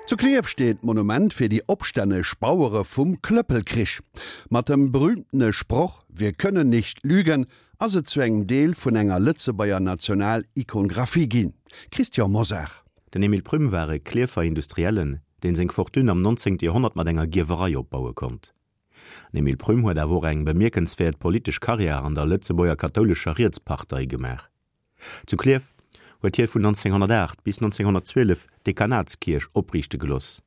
Zu Klierf steet d'Monument fir déi opstänneg Bauere vum Klëppelkrich. Mat dem berühmtene Sproch Wir können nicht lügen ass et zu engem Deel vun enger Lëtzebuerger National-Ikongraphie ginn. Christian Mosar. Den Emile Prüm war e Klierfer Industriellen, deen seng Fortune am 19. Joerhonnert mat enger Gierwerei opbaue konnt. Den Emile Prüm huet awer och eng bemierkenswäert politesch Karriär an der Lëtzebuerger kathoulescher Rietspartei gemaach. Zu Klierf huet hie vun 1908 bis 1912 d'Dekanatskierch opriichte geloss,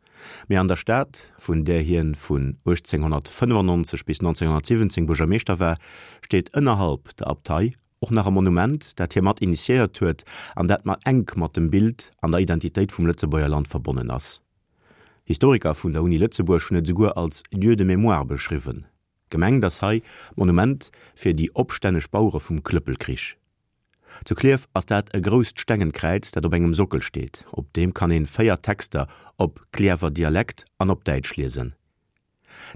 mee an der Stad, vun där hien vun 1895 bis 1917 Buergermeeschter war, steet ënnerhalb der Abtei och nach e Monument, dat hie mat initiéiert huet an dat mat enk mat dem Bild an der Identitéit vum Lëtzebuerger Land verbonnen ass. Historiker vun der Uni Lëtzebuerg hunn et esouguer als Lieu de mémoire beschriwwen. Gemengt ass hei d'Monument fir déi opstänneg Bauere vum Klëppelkrich. Zu Klierf ass dat e grousst stengent Kräiz, dat op engem Sockel steet. Op deem kann een 4 Texter op Cliärrwer Dialekt an op Däitsch liesen.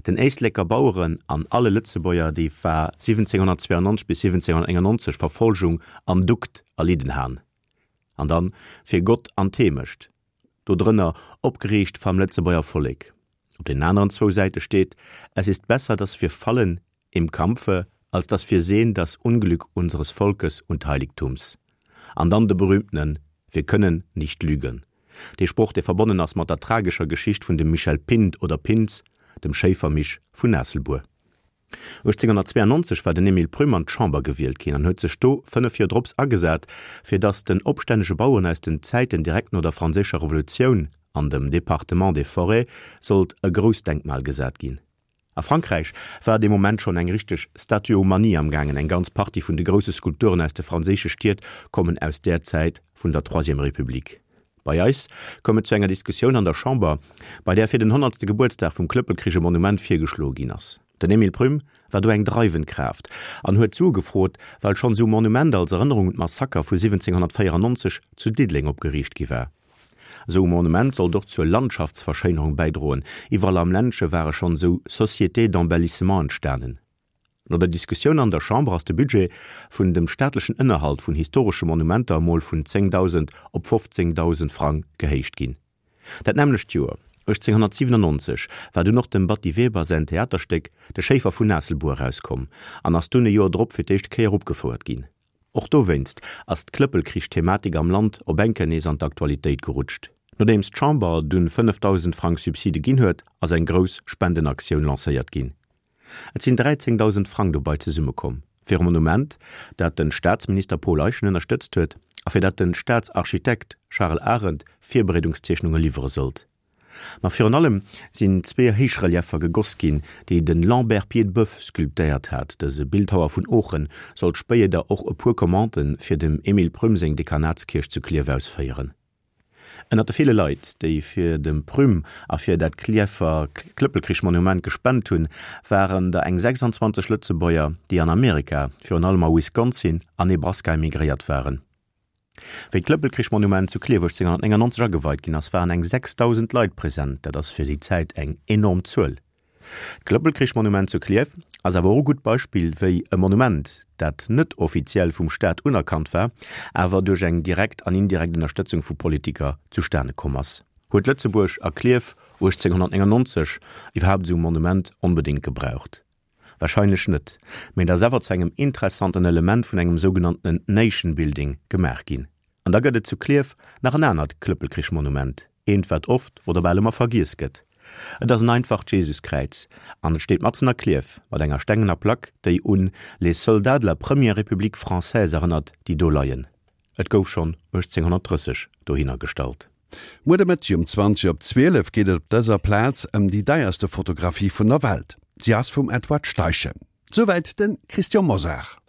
Den Éisleker Baueren an alle Lëtzebuerger, déi war 1792 bis 1791 Verfolgung an Dukt erlidden han. An dann fir Gott an d'Heemecht, do drënner opgeriicht vam Lëtzebuerger Vollek. Op den aneren zwou Säite steet, Es ist besser, dass wir fallen im Kampfe, als dass wir sehen das Unglück unseres Volkes und Heiligtums. An dann de berühmtenen Wir können nicht lügen. Dee Sproch, dee verbonnen ass mat der tragescher Geschicht vun dem Michel Pint oder Pintz, dem Schéifermisch vun Aasselbuer. 1892 war den Emile Prüm an d'Chamber gewielt ginn an huet sech do 5 Joer drops agesat, fir datt den opstännege Baueren aus den Zäiten direkt no der Franséischer Revolutioun an dem Département des Forêts sollt e grousst Denkmal gesat ginn. A Frankräich war dee Moment schonn eng richteg Statuomanie am gaangen, eng ganz Partie vun de grousse Skulpturen aus de franséische Stied kommen aus där Zäit vun der Troisième République. Bei eis koum et zu enger Diskussioun an der Chamber, bei där fir den honnertste Gebuertsdag vum Klëppelkrich e Monument virgeschloe ginn ass. Den Emile Prüm war do eng dreiwend Kraaft an huet Sue gefrot, well schonn esou Monument als Erënnerung un d'Massaker vu 1794 zu Diddeleng opgeriicht gi war. Esou e Monument sollt och zur Landschaftsverschéinerung bäidroen. Iwwerall am Ländche ware schonn esou Sociétés d'embellissement entstanen. No der Diskussioun an der Chamber ass de Budget vun dem staatlechen Ënnerhalt vun historesche Monumenter emol vun 10.000 op 15.000 Frang gehéicht ginn. Dat nämmlecht Joer, 1897, war dunn och dem Batty Weber säin Theaterstéck De Schéifer vun Aasselbuer erauskomm an ass dunn e Joer drop fir d'éischt Kéier opgefouert ginn. Och dowéinst ass d'Klëppelkrich-Thematik am Land op eng Kéier nees an d'Aktualitéit gerutscht. Nodeems d'Chamber dunn 5.000 Frang Subside ginn huet, ass eng grouss Spendenaktioun lancéiert ginn. Et sinn 13.000 Frang dobei zesummekomm, fir e Monument, dat de Staatsminister Paul Eyschen ënnerstëtzt huet a fir dat de Staatsarchitekt Charles Arendt Virbereedungszeechnunge liwwere sollt. Ma virun allem sinn zwee Héichrelieffer gegoss ginn, déi de Lambert Piedboeuf sculptéiert hat. Dëse Bildhauer vun Oochen sollt spéieder och e puer Commandë fir dem Emile Prüm seng Dekanatskierch zu Klierf ausféieren. Ënnert de ville Leit, déi fir dem Prüm a fir dat Klierfer Klëppelkrich-Monument gespent hunn, waren der eng 26 Lëtzebuerger, déi an Amerika, virun allem a Wisconsin a Nebraska emigréiert waren. Wéi d'Klëppelkrich-Monument zu Klierf 1899 ageweit ginn ass, waren eng 6.000 Leit present, dat ass fir déi Zäit eng enorm Zuel. D'Klëppelkrich-Monument zu Klierf ass awer och e gutt Beispill, wéi e Monument, dat net offiziell vum Staat unerkannt war, awer duerch eng direkt an indirekt Ënnerstëtzung vu Politiker zustane komm ass. Huet Lëtzebuerg a Klierf 1899 iwwerhaapt esou e Monument onbedéngt gebraucht? Warscheinlech net, mee et ass awer zu engem interessanten Element vun engem sougenanntenen Nation Building gemaach ginn. An da gëtt et zu Klierf nach en anert Klëppelkrich-Monument, eent wat oft oder bal ëmmer vergiess gëtt. Et ass en einfacht Jesuskräiz an et steet matzen a Klierf mat enger stengener Plack, déi un les soldats de la première République française erënnert, déi do leien. Et gouf schonn 1830 dohinner gestallt. Muer de Mëtteg um 20 op 12 geet et op dëser Plaz ëm déi deierste Fotografie vun der Welt. Si ass vum Edward Steichen. Souwäit de Christian Mosar.